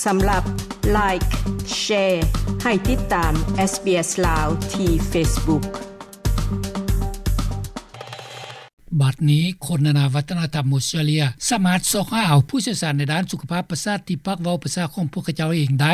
ສຳລັບ Like, Share ໃຫ້ຕິດຕາມ SBS ລາວ ທີ່ Facebook. ບັດນີ້ ຄົນນານາວັດທະນະທຳອົດສະຕຣາເລຍ ສາມາດຊອກຫາເອົາຜູ້ຊ່ຽວຊານໃນດ້ານສຸຂະພາບປະສາດ ທີ່ປາກເວົ້າພາສາຂອງພວກເຂົາເຈົ້າເອງໄດ້.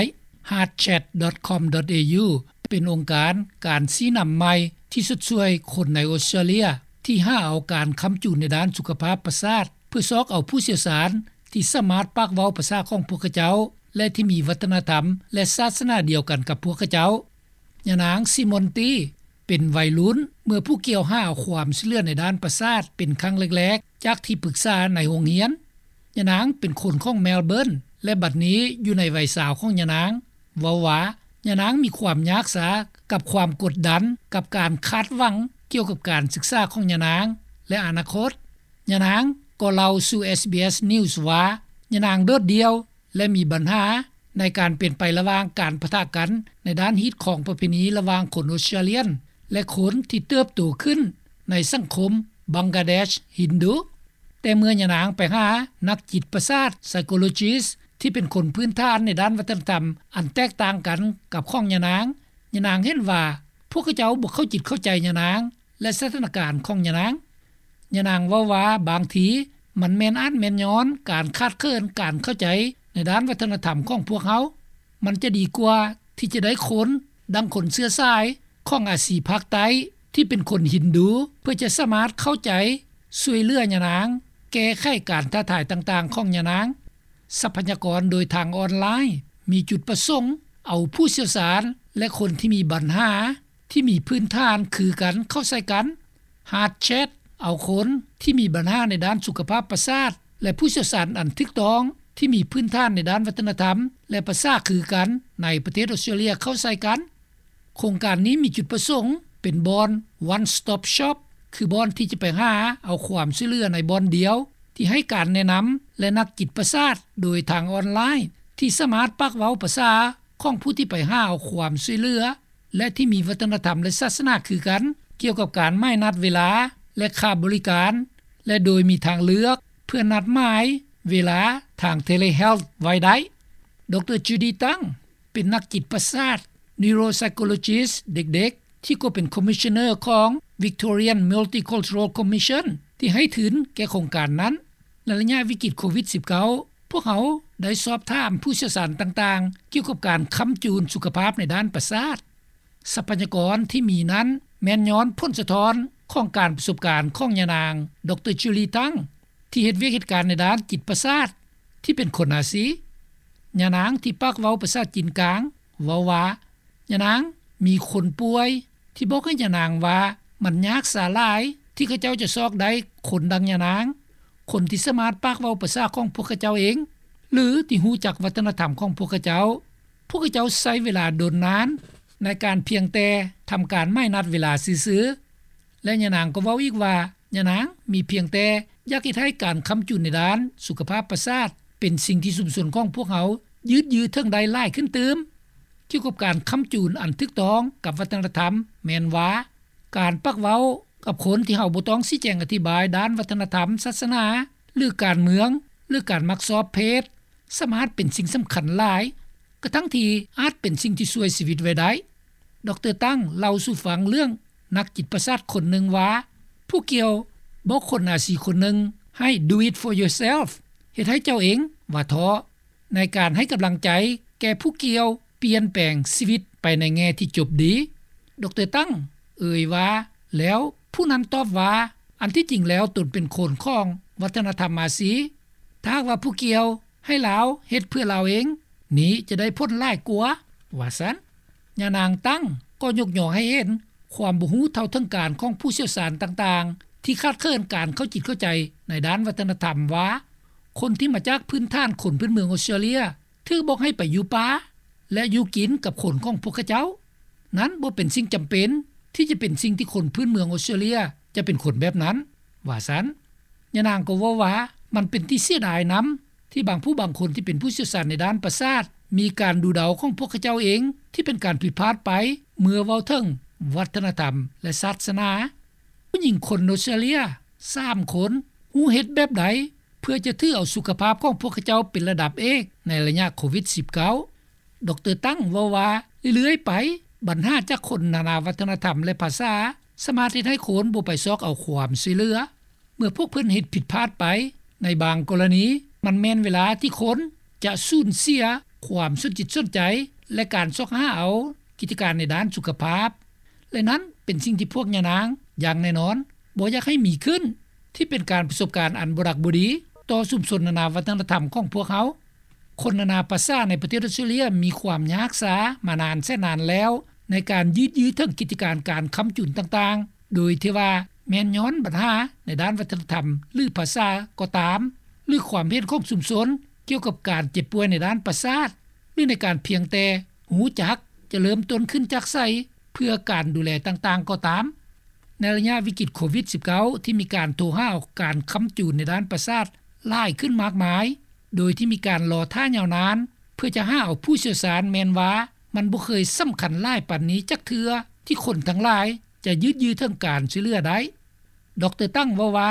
heartchat.com.au ເປັນອົງການການຊີ້ນຳໃໝ່ ທີ່ຊົດຊ່ວຍຄົນໃນອົດສະຕຣາເລຍ ທີ່ຫາເອົາການຄ້ຳຈູນໃນດ້ານສຸຂະພາບປະສາດ ເພື່ອຊອກເອົາຜູ້ຊ່ຽວຊານ ທີ່ສາມາດປາກເວົ້າພາສາຂອງພວກເຂົາເຈົ້າ ແລະ ທີ່ມີວັດທະນະທຳ ແລະ ສາສະໜາດຽວກັນກັບພວກເຂົາເຈົ້າ. ຍານາງ Simone T ເປັນໄວລຸ້ນ ເມື່ອຜູ້ກ່ຽວຫາເອົາຄວາມຊ່ວຍເຫຼືອໃນດ້ານປະສາດ ເປັນຄັ້ງແລກໆ ຈາກທີ່ປຶກສາໃນໂຮງຮຽນ. ຍານາງເປັນຄົນຂອງ Melbourne ແລະ ບັດນີ້ຢູ່ໃນໄວຊາວຂອງຍານາງ ເວົ້າວ່າ ຍານາງມີຄວາມຍາກຊາກັບຄວາມກົດດັນ ກັບການຄາດຫວັງກ່ຽວກັບການສຶກສາຂອງຍານາງ ແລະ ອະນາຄົດ. ຍານາງກໍເລົ່າສູ່ SBS News ວ່າ ຍານາງໂດດດ່ຽວ ແລະ ມີບັນຫາໃນການເປັນໄປລະຫວ່າງການປະທະກັນໃນດ້ານຮີດຄອງປະເພນີລະຫວ່າງຄົນອົດສະຕຣາເລຍນ ແລະ ຄົນທີ່ເຕີບໂຕຂຶ້ນໃນສັງຄົມບັງກາເດຊຮິນດູ. ແຕ່ເມື່ອຍານາງໄປຫານັກຈິດປະສາດ psychologist ທີ່ເປັນຄົນພື້ນຖານໃນດ້ານວັດທະນະທຳອັນແຕກຕ່າງກັນກັບຂອງຍານາງ, ຍານາງເຫັນວ່າພວກເຂົາເຈົ້າບໍ່ເຂົ້າຈິດເຂົ້າໃຈຍານາງ ແລະ ສະຖານະການຂອງຍານາງ. ຍານາງເວົ້າວ່າ ບາງທີມັນແມ່ນອາດແມ່ນຍ້ອນການຂາດເຂີນການເຂົ້າໃຈໃນດ້ານວັດທະນະທຳຂອງພວກເຮົາ. ມັນຈະດີກວ່າທີ່ຈະໄດ້ຄົນ ດັ່ງຄົນເຊື້ອສາຍຂອງອາຊີພາກໃຕ້ ທີ່ເປັນຄົນຮິນດູ ເພື່ອຈະສາມາດເຂົ້າໃຈ ຊ່ວຍເຫຼືອຍານາງ ແກ້ໄຂການທ້າທາຍຕ່າງໆຂອງຍານາງ. ຊັບພະຍາກອນໂດຍທາງອອນລາຍ ມີຈຸດປະສົງເອົາຜູ້ຊ່ຽວຊານ ແລະ ຄົນທີ່ມີບັນຫາ ທີ່ມີພື້ນຖານຄືກັນເຂົ້າໃສ່ກັນ. heartchat ເອົາຄົນທີ່ມີບັນຫາໃນດ້ານສຸຂະພາບປະສາດ ແລະ ຜູ້ຊ່ຽວຊານອັນຖືກຕ້ອງທີ່ມີພື້ນຖານໃນດ້ານວັດທະນະທຳ ແລະ ພາສາຄືກັນໃນປະເທດອົດສະຕຣາເລຍເຂົ້າໃສ່ກັນ. ໂຄງການນີ້ມີຈຸດປະສົງເປັນບ່ອນ one stop shop ຄືບ່ອນທີ່ຈະໄປຫາເອົາຄວາມຊ່ວຍເຫຼືອໃນບ່ອນດຽວ ທີ່ໃຫ້ການແນະນຳ ແລະ ນັກຈິດປະສາດໂດຍທາງອອນລາຍ ທີ່ສາມາດປາກເວົ້າພາສາຂອງຜູ້ທີ່ໄປຫາເອົາຄວາມຊ່ວຍເຫຼືອ ແລະ ທີ່ມີວັດທະນະທຳ ແລະ ສາສະໜາຄືກັນ ກ່ຽວກັບການໝາຍນັດເວລາ ແລະ ຄ່າບໍລິການ ແລະ ໂດຍມີທາງເລືອກເພື່ອນັດໝາຍເວລາທາງ telehealth ໄວ້ໄດ້. ດຣ. Judy Tang ເປັນນັກຈິດປະສາດ neuropsychologist ເດັກໆ ທີ່ກໍເປັນ Commissioner ຂອງ Victorian Multicultural Commission ທີ່ໃຫ້ທຶນແກ່ໂຄງການນັ້ນ. ໃນໄລຍະວິກິດໂຄວິດສິບເກົ້າ ພວກເຮົາໄດ້ສອບຖາມຜູ້ຊ່ຽວຊານຕ່າງໆ ກ່ຽວກັບການຄ້ຳຈູນສຸຂະພາບໃນດ້ານປະສາດ. ຊັບພະຍາກອນທີ່ມີນັ້ນແມ່ນຍ້ອນຜົນສະທ້ອນຂອງການປະສົບການຂອງຍານາງ ດຣ. Judy Tang ທີ່ເຮັດວຽກເຮັດການໃນດ້ານຈິດປະສາດ ທີ່ເປັນຄົນອາຊີ. ຍານາງທີ່ປາກເວົ້າພາສາຈີນກາງເວົ້າວ່າ ຍານາງມີຄົນປ່ວຍທີ່ບອກໃຫ້ຍານາງວ່າ ມັນຍາກສາຫຼາຍທີ່ເຂົາເຈົ້າຈະຊອກໄດ້ຄົນດັ່ງຍານາງ, ຄົນທີ່ສາມາດປາກເວົ້າພາສາຂອງພວກເຂົາເຈົ້າເອງ ຫຼື ທີ່ຮູ້ຈັກວັດທະນະທຳຂອງພວກເຂົາເຈົ້າ. ພວກເຂົາເຈົ້າໃຊ້ເວລາດົນນານໃນການພຽງແຕ່ທຳການໝາຍນັດເວລາຊື່ໆ. ແລະ ຍານາງກໍເວົ້າອີກວ່າ ຍານາງມີພຽງແຕ່ຢາກເຮັດໃຫ້ການຄ້ຳຈູນໃນດ້ານສຸຂະພາບປະສາດ ເປັນສິ່ງທີ່ຊຸມຊົນຂອງພວກເຮົາຍືດເຖິງໄດ້ຫຼາຍຂຶ້ນຕື່ມ. ກ່ຽວກັບການຄ້ຳຈູນອັນຖືກຕ້ອງກັບວັດທະນະທຳ ແມ່ນວ່າ ການປາກເວົ້າກັບຄົນທີ່ເຮົາບໍ່ຕ້ອງຊີ້ແຈງອະທິບາຍດ້ານວັດທະນະທຳ, ສາສະໜາ ຫຼື ການເມືອງ ຫຼື ການມັກຊອບເພດ ສາມາດເປັນສິ່ງສຳຄັນຫຼາຍ ກະທັ່ງທີ່ອາດເປັນສິ່ງທີ່ຊ່ວຍຊີວິດໄວ້ໄດ້. ດຣ. Tang ເລົ່າສູ່ຟັງເລື່ອງນັກຈິດປະສາດຄົນໜຶ່ງວ່າ ຜູ້ກ່ຽວບອກຄົນອາຊີຄົນໜຶ່ງໃຫ້ Do it for yourself ເຮັດໃຫ້ເຈົ້າເອງ ວ່າທ້ອ ໃນການໃຫ້ກຳລັງໃຈແກ່ຜູ້ກ່ຽວປ່ຽນແປງຊີວິດໄປໃນແງ່ທີ່ຈົບດີ. ດຣ. Tang ເອີ່ຍວ່າ ແລ້ວຜູ້ນັ້ນຕອບວ່າ ອັນທີ່ຈິງແລ້ວຕົນເປັນຄົນຂອງວັດທະນະທຳອາຊີ. ຖ້າຫາກວ່າຜູ້ກ່ຽວໃຫ້ລາວເຮັດເພື່ອລາວເອງ ນີ້ຈະໄດ້ຜົນຫຼາຍກວ່າ ວ່າຊັ້ນ. ຍານາງ Tang ກໍຍົກຍໍໃຫ້ເຫັນຄວາມບໍ່ຮູ້ເທົ່າເຖິງການຂອງຜູ້ຊ່ຽວຊານຕ່າງໆ ທີ່ຂາດເຂີນການເຂົ້າຈິດເຂົ້າໃຈໃນດ້ານວັດທະນະທຳວ່າ ຄົນທີ່ມາຈາກພື້ນຖານຄົນພື້ນເມືອງອົດສະຕຣາເລຍ ຖືກບອກໃຫ້ໄປຢູ່ປ່າ ແລະ ຢູ່ກິນກັບຄົນຂອງພວກເຂົາເຈົ້າ. ນັ້ນບໍ່ເປັນສິ່ງຈຳເປັນທີ່ຈະເປັນສິ່ງທີ່ຄົນພື້ນເມືອງອົດສະຕຣາເລຍຈະເປັນຄົນແບບນັ້ນ ວ່າຊັ້ນ. ຍານາງກໍເວົ້າວ່າ ມັນເປັນທີ່ເສຍດາຍນຳ ທີ່ບາງຜູ້ບາງຄົນທີ່ເປັນຜູ້ຊ່ຽວຊານໃນດ້ານປະສາດ ມີການດູເດົາຂອງພວກເຂົາເຈົ້າເອງ ທີ່ເປັນການຜິດພາດໄປ ເມື່ອເວົ້າເຖິງວັດທະນະທຳ ແລະ ສາສະໜາ. ຜູ້ຍິງຄົນອົດສະຕຣາເລຍສາມຄົນ ຮູ້ເຮັດແບບໃດ ພື່ອຈະຖືເອົາສຸຂະພາບຂອງພວກເຂົາເຈົ້າເປັນລະດັບເອກໃນໄລຍະໂຄວິດ-19. ດຣ. ຕັງເວົ້າວ່າ ເລື້ອຍໆໄປ ບັນຫາຈາກຄົນນານາວັດທະນະທຳ ແລະ ພາສາ ສາມາດເຮັດໃຫ້ຄົນບໍ່ໄປຊອກເອົາຄວາມຊ່ວຍເຫຼືອ. ເມື່ອພວກເພິ່ນເຮັດຜິດພາດໄປ ໃນບາງກໍລະນີ ມັນແມ່ນເວລາທີ່ຄົນຈະສູນເສຍຄວາມສົນຈິດສົນໃຈ ແລະ ການຊອກຫາເອົາກິດຈະການໃນດ້ານສຸຂະພາບ ແລະ ນັ້ນເປັນສິ່ງທີ່ພວກຍານາງຢ່າງແນ່ນອນບໍ່ຢາກໃຫ້ມີຂຶ້ນ ທີ່ເປັນການປະສົບການອັນບໍ່ດັກບໍ່ດີຕໍ່ຊຸມຊົນນານາວັດທະນະທຳຂອງພວກເຮົາ. ຄົນນານາພາສາໃນປະເທດອອສເຕຣເລັຽມີຄວາມຍາກຊາມານານແສນນານແລ້ວ ໃນການຍືດເຖິງກິດຈະການການຄ້ຳຈູນຕ່າງໆ ໂດຍທີ່ວ່າແມ່ນຍ້ອນບັນຫາໃນດ້ານວັດທະນະທຳ ຫຼື ພາສາກໍຕາມ ຫຼື ຄວາມເຫັນຂອງຊຸມຊົນກ່ຽວກັບການເຈັບປ່ວຍໃນດ້ານປະສາດ ຫຼື ໃນການພຽງແຕ່ຮູ້ຈັກຈະເລີ່ມຕົ້ນຂຶ້ນຈາກໃສ ເພື່ອການດູແລຕ່າງໆກໍຕາມ. ໃນໄລຍະວິກິດໂຄວິດ-19 ທີ່ມີການໂທຫາເອົາການຄ້ຳຈູນໃນດ້ານປະສາດຫຼາຍຂຶ້ນມາກມາຍ ໂດຍທີ່ມີການລໍຖ້າຍາວນານ ເພື່ອຈະຫາເອົາຜູ້ຊ່ຽວຊານ ແມ່ນວ່າມັນບໍ່ເຄີຍສຳຄັນຫຼາຍປານນີ້ຈັກເທື່ອ ທີ່ຄົນທັງຫຼາຍຈະຍືດເຖິງການຊ່ວຍເຫຼືອໄດ້. ດຣ. ຕັງເວົ້າວ່າ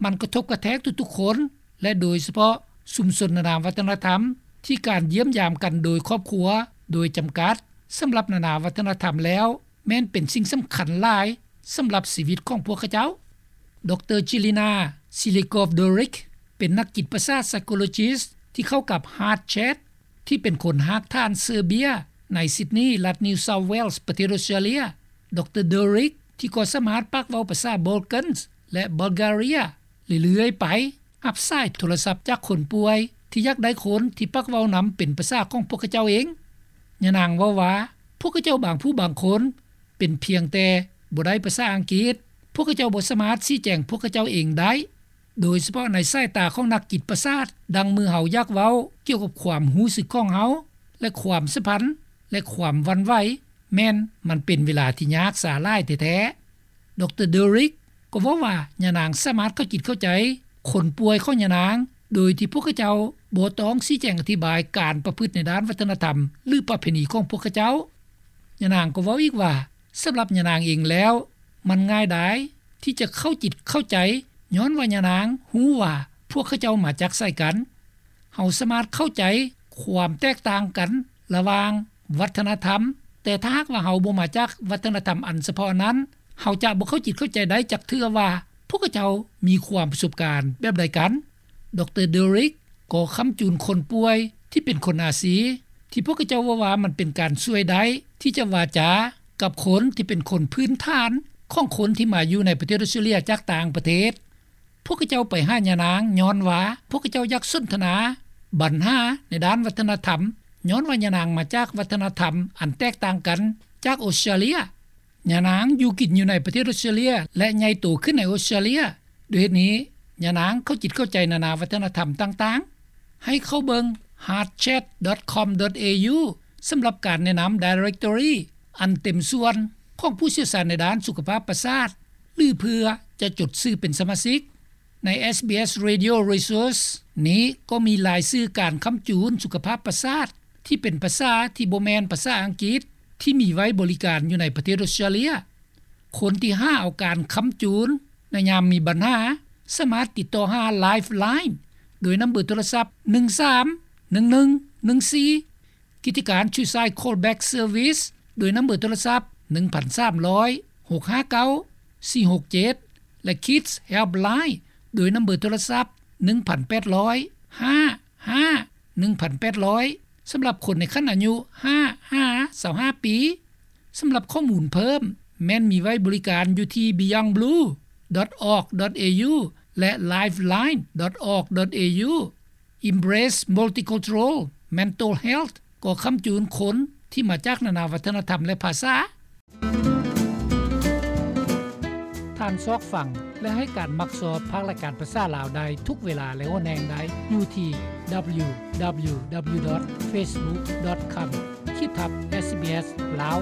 ມັນກະທົບກະແທກທຸກໆຄົນ ແລະ ໂດຍສະເພາະຊຸມຊົນນານາວັດທະນະທຳ ທີ່ການຢ້ຽມຢາມກັນໂດຍຄອບຄົວໂດຍຈຳກັດ ສຳລັບນານາວັດທະນະທຳແລ້ວ ແມ່ນເປັນສິ່ງສຳຄັນຫຼາຍສຳລັບຊີວິດຂອງພວກເຂົາເຈົ້າ. ດຣ. Jelena Siligoff-Doerk ເປັນນັກຈິດປະສາດ psychologist ທີ່ເຂົ້າກັບ HeartChat ທີ່ເປັນຄົນຮາກຖານເຊີເບຍ ໃນ Sydney ລັດ New South Wales ປະເທດອອສເຕຣເລັຽ. ດຣ. Doerk ທີ່ກໍສາມາດປາກເວົ້າພາສາ Balkans ແລະ Bulgaria ເລື້ອຍໆໄປ ຮັບສາຍໂທລະສັບຈາກຄົນປ່ວຍ ທີ່ຢາກໄດ້ຄົນທີ່ປາກເວົ້ານຳເປັນພາສາຂອງພວກເຂົາເຈົ້າເອງ. ຍານາງເວົ້າວ່າ ພວກເຂົາເຈົ້າບາງຜູ້ບາງຄົນ ເປັນພຽງແຕ່ບໍ່ໄດ້ພາສາອັງກິດ, ພວກເຂົາເຈົ້າບໍ່ສາມາດຊີ້ແຈງພວກເຂົາເຈົ້າເອງໄດ້, ໂດຍສະເພາະໃນສາຍຕາຂອງນັກຈິດປະສາດ, ດັ່ງເມື່ອເຮົາຢາກເວົ້າກ່ຽວກັບຄວາມຮູ້ສຶກຂອງເຮົາ ແລະ ຄວາມສຳພັນ ແລະ ຄວາມຫວັ່ນໄຫວ, ແມ່ນມັນເປັນເວລາທີ່ຍາກຊາຫຼາຍແທ້ໆ. ດຣ. Doerk ກໍເວົ້າວ່າ ຍານາງສາມາດເຂົ້າຈິດເຂົ້າໃຈຄົນປ່ວຍຂອງຍານາງ ໂດຍທີ່ພວກເຂົາເຈົ້າບໍ່ຕ້ອງຊີ້ແຈງອະທິບາຍການປະພຶດໃນດ້ານວັດທະນະທຳ ຫຼື ປະເພນີຂອງພວກເຂົາເຈົ້າ. ຍານາງກໍເວົ້າອີກວ່າ ສຳລັບຍານາງເອງແລ້ວ ມັນງ່າຍດາຍທີ່ຈະເຂົ້າຈິດເຂົ້າໃຈ ຍ້ອນວ່າຍານາງຮູ້ວ່າພວກເຂົາເຈົ້າມາຈາກໃສກັນ. ເຮົາສາມາດເຂົ້າໃຈຄວາມແຕກຕ່າງກັນລະຫວ່າງວັດທະນະທຳ, ແຕ່ຖ້າຫາກວ່າເຮົາບໍ່ມາຈາກວັດທະນະທຳອັນສະເພາະນັ້ນ, ເຮົາຈະບໍ່ເຂົ້າຈິດເຂົ້າໃຈໄດ້ຈັກເທື່ອວ່າພວກເຂົາເຈົ້າມີຄວາມປະສົບການແບບໃດກັນ. ດຣ. Doerk ກໍຄ້ຳຈູນຄົນປ່ວຍທີ່ເປັນຄົນອາຊີ ທີ່ພວກເຂົາເຈົ້າເວົ້າວ່າມັນເປັນການຊ່ວຍໄດ້ ທີ່ຈະວາຈາກັບຄົນທີ່ເປັນຄົນພື້ນຖານຂອງຄົນທີ່ມາຢູ່ໃນປະເທດອອສເຕຣເລັຽຈາກຕ່າງປະເທດ. ພວກເຂົາເຈົ້າໄປຫາຍານາງຍ້ອນວ່າພວກເຂົາເຈົ້າຢາກສົນທະນາບັນຫາໃນດ້ານວັດທະນະທຳ, ຍ້ອນວ່າຍານາງມາຈາກວັດທະນະທຳອັນແຕກຕ່າງກັນຈາກອອສເຕຣເລັຽ. ຍານາງຢູ່ກິນຢູ່ໃນປະເທດອອສເຕຣເລັຽ ແລະ ໃຫຍ່ໂຕຂຶ້ນໃນອອສເຕຣເລັຽ. ດ້ວຍເຫດນີ້, ຍານາງເຂົ້າຈິດເຂົ້າໃຈນານາວັດທະນະທຳຕ່າງໆ. ໃຫ້ເຂົ້າເບິ່ງ heartchat.com.au ສຳລັບການແນະນຳ directory ອັນເຕັມສ່ວນຂອງຜູ້ຊ່ຽວຊານໃນດ້ານສຸຂະພາບປະສາດ ຫຼື ເພື່ອຈະຈົດຊື່ເປັນສະມາຊິກ. ໃນ SBS Radio Resource ນີ້ກໍມີລາຍຊື່ການຄ້ຳຈູນສຸຂະພາບປະສາດ ທີ່ເປັນພາສາທີ່ບໍ່ແມ່ນພາສາອັງກິດ ທີ່ມີໄວ້ບໍລິການຢູ່ໃນປະເທດອອສເຕຣເລັຽ. ຄົນທີ່ຫາເອົາການຄ້ຳຈູນໃນຍາມມີບັນຫາ ສາມາດຕິດຕໍ່ຫາ Lifeline ໂດຍນຳເບີໂທລະສັບ ໜຶ່ງສາມໜຶ່ງໜຶ່ງໜຶ່ງສີ່, ກິດຈະການ Suicide Callback Service ໂດຍນຳເບີໂທລະສັບ ໜຶ່ງພັນສາມຮ້ອຍ ຫົກຫ້າເກົ້າ ສີ່ຫົກເຈັດ ແລະ Kids Helpline ໂດຍນຳເບີໂທລະສັບ ໜຶ່ງພັນແປດຮ້ອຍ ຫ້າຫ້າ ໜຶ່ງພັນແປດຮ້ອຍ ສຳລັບຄົນໃນຂັ້ນອາຍຸ ຫ້າຫາ ຊາວຫ້າປີ. ສຳລັບຂໍ້ມູນເພີ່ມ ແມ່ນມີໄວ້ບໍລິການຢູ່ທີ່ beyondblue.org.au ແລະ lifeline.org.au. Embrace Multicultural Mental Health ກໍຄ້ຳຈູນຄົນທີ່ມາຈາກນານາວັດທະນະທຳ ແລະ ພາສາ. ທ່ານຊອກຟັງ ແລະ ໃຫ້ການມັກຊອບພາກລາຍການພາສາລາວໄດ້ທຸກເວລາ ແລະ ໂອນແຮງໄດ້ຢູ່ທີ່ www.facebook.com/sbslao.